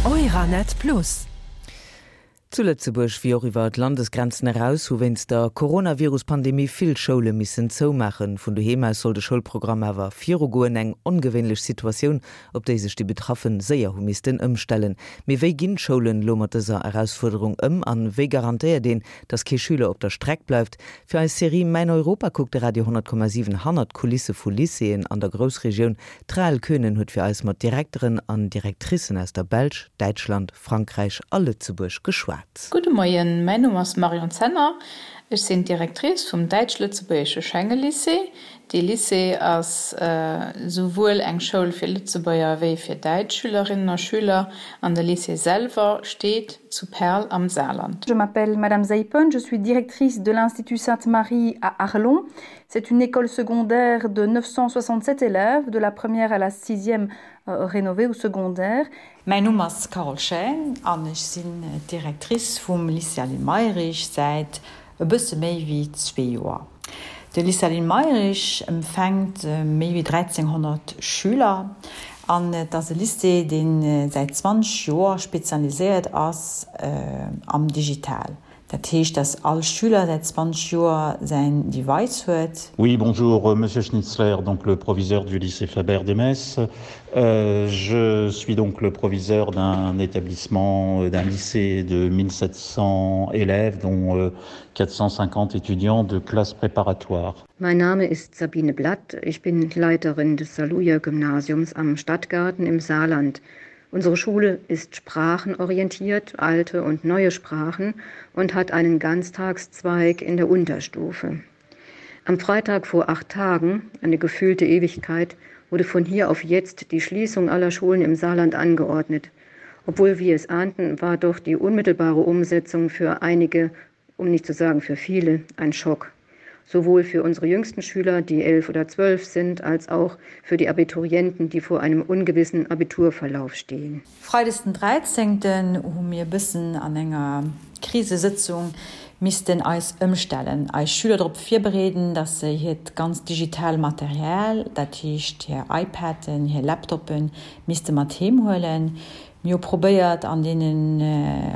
Euranet Plus. Zu Lëtzebuerg wéi och iwwer d'Landesgrenzen eraus hu wéinst der Coronavirus-Pandemie vill Schoule missen zoumaachen. Vun doheem aus soll de Schoulprogramm awer virugoen. Eng ongewéinlech Situatioun, op déi sech déi Betraffen séier hu missten ëmstellen. Mee wéi ginn d'Schoulen elo mat dëser Erausfuerderung ëm an wéi garantéiert een, dass kee Schüler op der Streck bleift? Fir eis Serie Mäin Europa kuckt de Radio 10,7 hannert d'Kulisse vu Lycéeën an der Groussregioun. D'Rahel Könen huet fir eis mat Direkteren an Directricen aus der Belsch, Däitschland, Frankräich a Lëtzebuerg geschwat. Gudde Moien, mäin Numm ass Marion Zenner. Ech sinn d'Directrice vum däitsch-lëtzebuergesche Schenge-Lycée. Dee Lycée ass souwuel eng Schoul fir Lëtzebuerger wéi fir däitsch Schülerinnen a Schüler an de Lycée selwer steet zu Perl am Saarland. Je m'appelle Madame Zeipen, je suis directrice de l'Institut Sainte-Marie à Arlon. C'est une école secondaire de 967 élèves, de la première à la sixième euh, rénovée ou secondaire. Mäin Numm ass Carole Chaine an ech sinn d'Directrice vum Lycée Aline Mayrisch säit e bësse méi wéi zwee Joer. De Lycée Aline Mayrisch empfänkt méi wéi 1.300 Schüler an et ass e Lycée, dee säit 20 Joer spezialiséiert ass am Digital. Dat heescht, dass all Schüler säit 20 Joer säin Device huet. Oui, bonjour, Monsieur Schnitzler, donc le proviseur du lycée Fabert de Metz. Euh, je suis donc le proviseur d'un établissement, euh, d'un lycée de 1700 élèves, dont euh, 450 étudiants de classe préparatoire. Mein Name ist Sabine Blatt, ich bin Leiterin des Saluja Gymnasiums am Stadtgarten im Saarland. Unsere Schule ist sprachenorientiert, alte und neue Sprachen und hat einen Ganztagszweig in der Unterstufe. Am Freitag vor acht Tagen, eine gefühlte Ewigkeit, wurde von hier auf jetzt die Schließung aller Schulen im Saarland angeordnet. Obwohl wir es ahnten, war doch die unmittelbare Umsetzung für einige, um nicht zu sagen für viele, ein Schock. Sowohl für unsere jüngsten Schüler, die elf oder zwölf sind, als auch für die Abiturienten, die vor einem ungewissen Abiturverlauf stehen. Freides den 13. hu mir e bëssen an enger Krisesëtzung missten eis ëmstellen, eis Schüler drop virbereeden, dass se hiert ganz digital Material, dat heescht hir iPaden, hir Laptoppen, misste mat heem huelen. Mir hu probéiert an deenen,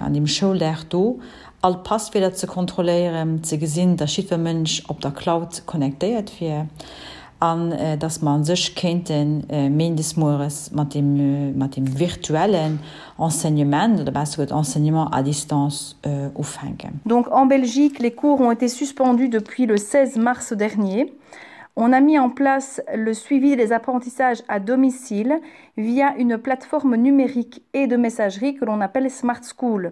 an deem Schouldag do all d'Passwierder ze kontrolléieren, ze gesinn, dass jiddwer Mënsch op der Cloud connectéiert wier an dass mer a sech kéinte méindes mueres mat deem, mat deem virtuellen Enseignement oder besser gesot Enseignement à distance ufänken. Donc en Belgique, les cours ont été suspendus depuis le 16 mars dernier. On a mis en place le suivi des apprentissages à domicile via une plateforme numérique et de messagerie que l'on appelle Smart School.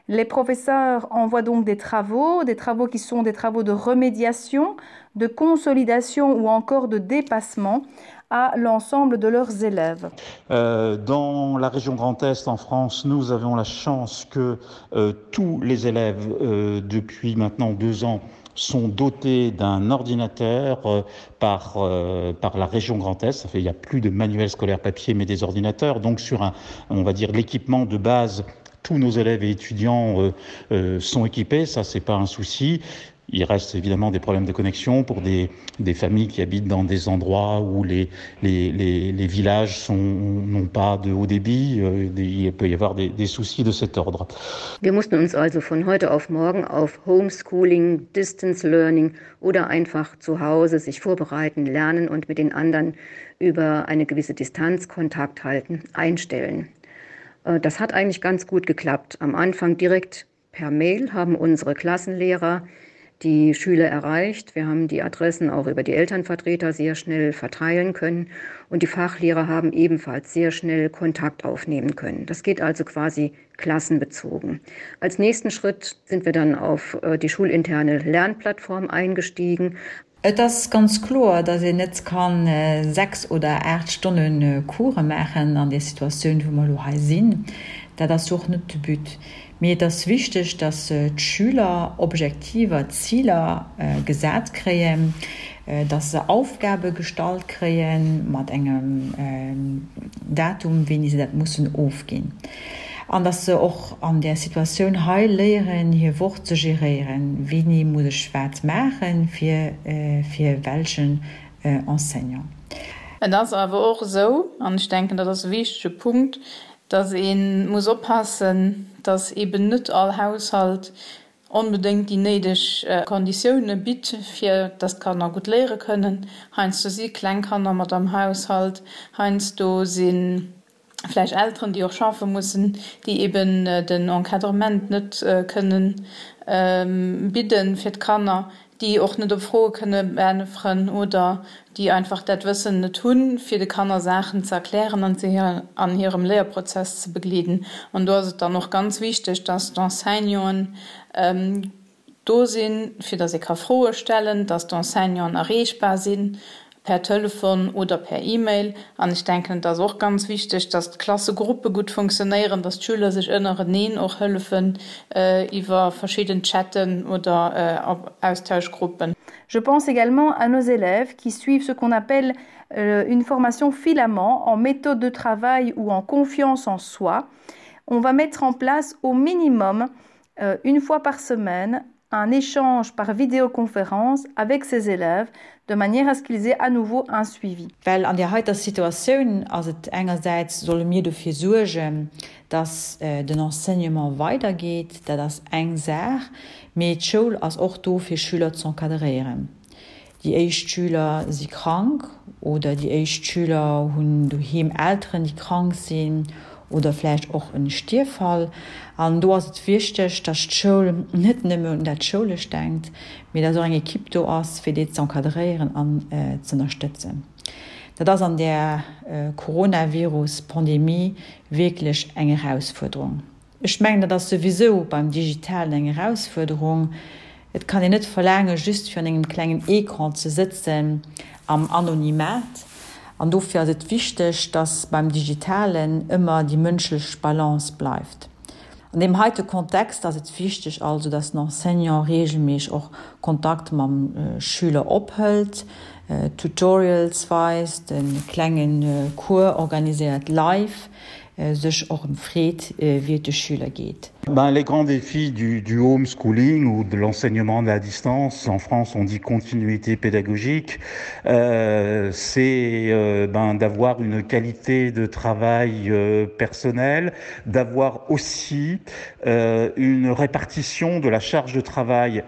Les professeurs envoient donc des travaux, des travaux qui sont des travaux de remédiation, de consolidation ou encore de dépassement à l'ensemble de leurs élèves. Euh, dans la région Grand Est en France, nous avons la chance que euh, tous les élèves euh, depuis maintenant deux ans sont dotés d'un ordinateur euh, par, euh, par la région Grand Est. Ça fait, il n'y a plus de manuels scolaires papier mais des ordinateurs. Donc sur un, on va dire l'équipement de base, tous nos élèves et étudiants euh, euh, sont équipés, ça c'est pas un souci. Il reste évidemment des problèmes de connexion pour des, des familles qui habitent dans des endroits où les, les, les, les villages n'ont pas de haut débit. Euh, il peut y avoir des, des soucis de cet ordre. Wir mussten uns also von heute auf morgen auf Homeschooling, Distance Learning oder einfach zu Hause sich vorbereiten, lernen und mit den anderen über eine gewisse Distanz Kontakt halten, einstellen. Äh, das hat eigentlich ganz gut geklappt. Am Anfang direkt per Mail haben unsere Klassenlehrer die Schüler erreicht. Wir haben die Adressen auch über die Elternvertreter sehr schnell verteilen können und die Fachlehrer haben ebenfalls sehr schnell Kontakt aufnehmen können. Das geht also quasi klassenbezogen. Als nächsten Schritt sind wir dann auf äh, die schulinterne Lernplattform eingestiegen. Et ass ganz kloer, datt een net ka 6 oder 8 Stonne Course maachen an där Situatioun, wou mer elo hei sinn. Dat ass jo och net de But. Mee et ass wichteg, datt d'Schüler Objektiver, Ziler gesat kréien, datt se Aufgabe gestallt kréie mat engem Datum, wéini se dat mussen ofginn. An dass se och an där Situatioun hei léieren, hir Woch ze geréieren, Wéini muss ech wat maachen, fir fir welchen Enseignant. Et ass awer och esou, an ech denken, dat ass e wichtege Punkt, Dass ee muss oppassen, dass eeben net all Haushalt onbedéngt déi néideg Konditioune bitt, fir dass d'Kanner gutt léiere kënnen. Heiansdo si kleng Kanner mat am Haushalt, heiansdo si vläicht Elteren, déi och schaffe mussen, déi eben den Encadrement net kënnen bidden fir d'Kanner, déi och net op Froe kënne beäntweren oder déi einfach dat Wëssen net hunn, fir de Kanner Saachen ze erklären an se an hirem Léierprozess ze begleeden. An do ass et dann och ganz wichteg, dass d'Enseignanten do sinn, fir dass ee ka Froe stellen, dass d'Enseignanten erreechbar sinn per Telefon oder per E-Mail. An ech denken, et ass och ganz wichteg, dass d'Klassegruppe gutt funktionéieren, dass d'Schüler sech ënnereneen och hëllefen iwwer verschidden Chatten oder Austauschgruppen. Je pense également à nos élèves qui suivent ce qu'on appelle euh, une formation filament en méthode de travail ou en confiance en soi. On va mettre en place au minimum euh, une fois par semaine un échange par vidéoconférence avec ses élèves de manière à ce qu'ils aient à nouveau un suivi. Well an där heiter Situatioun ass et engersäits, solle mir dofir suergen, dass den Enseignement weidergeet, dat ass eng Saach, mee d'Schoul ass och do fir Schüler z'encadréieren. Déi éischt Schüler si krank oder déi éischt Schüler hunn doheem Elteren, déi krank sinn oder vläicht och en Stierffall. An do ass et wichteg, dass d'Schoul net nëmme un dat Schoulescht denkt, mee dass och eng Ekipp do ass, fir déi z'encadréieren an z'ënnerstëtzen. Dat ass an där Coronavirus-Pandemie wierklech eng Erausfuerderung. Ech mengen, dat ass souwisou beim Digitalen eng Erausfuerderung. Et kann een net verlaangen, just virun engem klengen Ecran ze sëtzen am Anonymat. An dofir ass et wichteg, dass beim Digitalen ëmmer déi mënschlech Balance bleift. An deem heite Kontext ass et wichteg also, dass den Enseignant reegelméisseg och Kontakt mam Schüler ophëlt, Tutorials weist, e klenge Cours organiséiert live, sech och ëm freet, wéi et de Schüler geet. Ben, les grands défis du, du homeschooling ou de l'enseignement à distance, en France on dit continuité pédagogique, euh, c'est euh, ben, d'avoir une qualité de travail euh, personnel, d'avoir aussi euh, une répartition de la charge de travail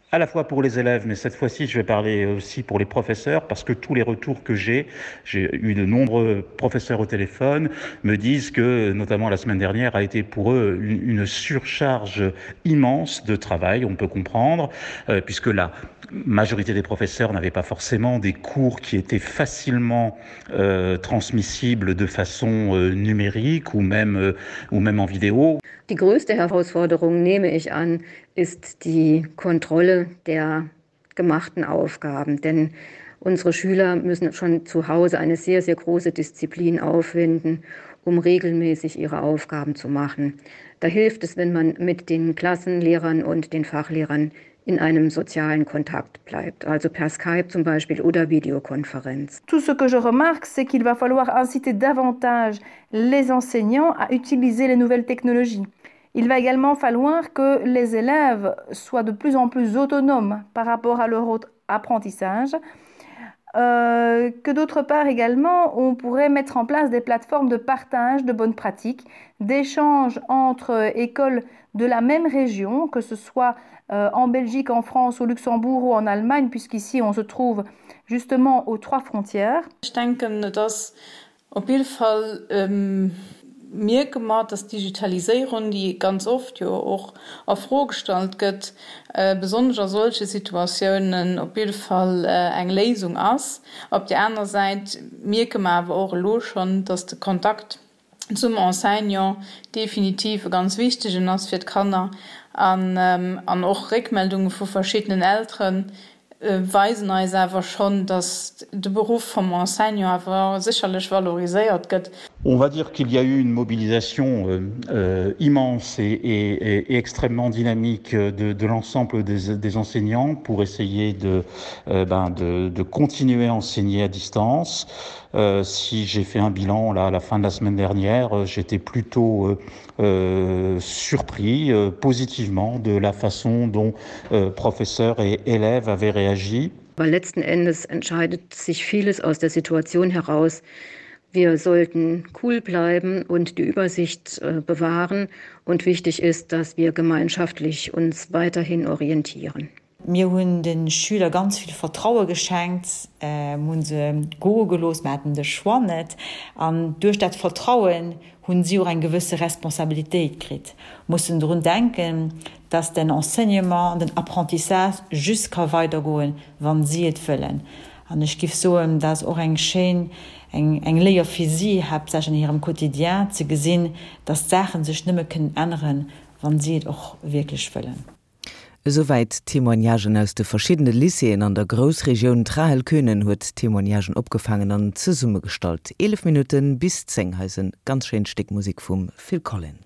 à la fois pour les élèves, mais cette fois-ci je vais parler aussi pour les professeurs parce que tous les retours que j'ai, j'ai eu de nombreux professeurs au téléphone, me disent que notamment la semaine dernière a été pour eux une, une surcharge immense de travail, on peut comprendre, euh, puisque la majorité des professeurs n'avaient pas forcément des cours qui étaient facilement euh, transmissibles de façon euh, numérique ou même, euh, ou même en vidéo. Die größte Herausforderung nehme ich an, ist die Kontrolle der gemachten Aufgaben, denn unsere Schüler müssen schon zu Hause eine sehr, sehr große Disziplin aufwenden, um regelmäßig ihre Aufgaben zu machen. Da hilft es, wenn man mit den Klassenlehrern und den Fachlehrern in einem sozialen Kontakt bleibt, also per Skype zum Beispiel oder Videokonferenz. Tout ce que je remarque, c'est qu'il va falloir inciter davantage les enseignants à utiliser les nouvelles technologies. Il va également falloir que les élèves soient de plus en plus autonomes par rapport à leur autre apprentissage. Euh, que d'autre part également, on pourrait mettre en place des plateformes de partage de bonnes pratiques, d'échanges entre écoles de la même région, que ce soit euh, en Belgique, en France, au Luxembourg ou en Allemagne, puisqu'ici on se trouve justement aux trois frontières. Ech denken, et ass Op jidde Fall mierke mer, dass d'Digitaliséierung, déi ganz oft jo och a Fro gestallt gëtt, besonnesch a solche Situatiounen op jidde Fall eng Léisung ass. Op där aner Säit mierke mer awer och elo schonn, dass de Kontakt zum Enseignant definitiv e ganz wichtegen ass fir d'Kanner an och Réckmeldunge vu verschiddenen Elteren weisen eis awer schonn, datt de Beruff vum Enseignant awer sécherlech valoriséiert gëtt. On va dire qu'il y a eu une mobilisation euh, immense et, et, et extrêmement dynamique de, de l'ensemble des, des enseignants pour essayer de, euh, ben de, de continuer à enseigner à distance. Euh, si j'ai fait un bilan là, à la fin de la semaine dernière, euh, j'étais plutôt euh, euh, surpris euh, positivement de la façon dont euh, professeurs et élèves avaient réagi. Aber letzten Endes entscheidet sich vieles aus der Situation heraus, wie. Wir sollten cool bleiben und die Übersicht äh, bewahren und wichtig ist, dass wir gemeinschaftlich uns weiterhin orientieren. Mir hunn de Schüler ganz vill Vertraue geschenkt, mir hu se goe gelooss, mir haten de Choix net. An duerch dat Vertrauen hunn si och eng gewësse Responsabilitéit kritt, mussen drun denken, dass den Enseignement an den Apprentissage just ka weidergoen, wann si et wëllen. An ech giff soen, dat ass och eng schéin, eng, eng Léier fir si, haaptsächlech an hirem Quotidien, ze gesinn, dass d'Saache sech nëmme kënnen änneren, wann si et och wierklech wëllen. Esouwäit d'Témoignagen aus de verschiddene Lycéeën an der Groussregioun. D'Rahel Könen huet d'Témoignagen opgefaangen an zesummegestallt. 11 Minutte bis 10, hei ass e ganz schéint Stéck Musek vum Phil Collins.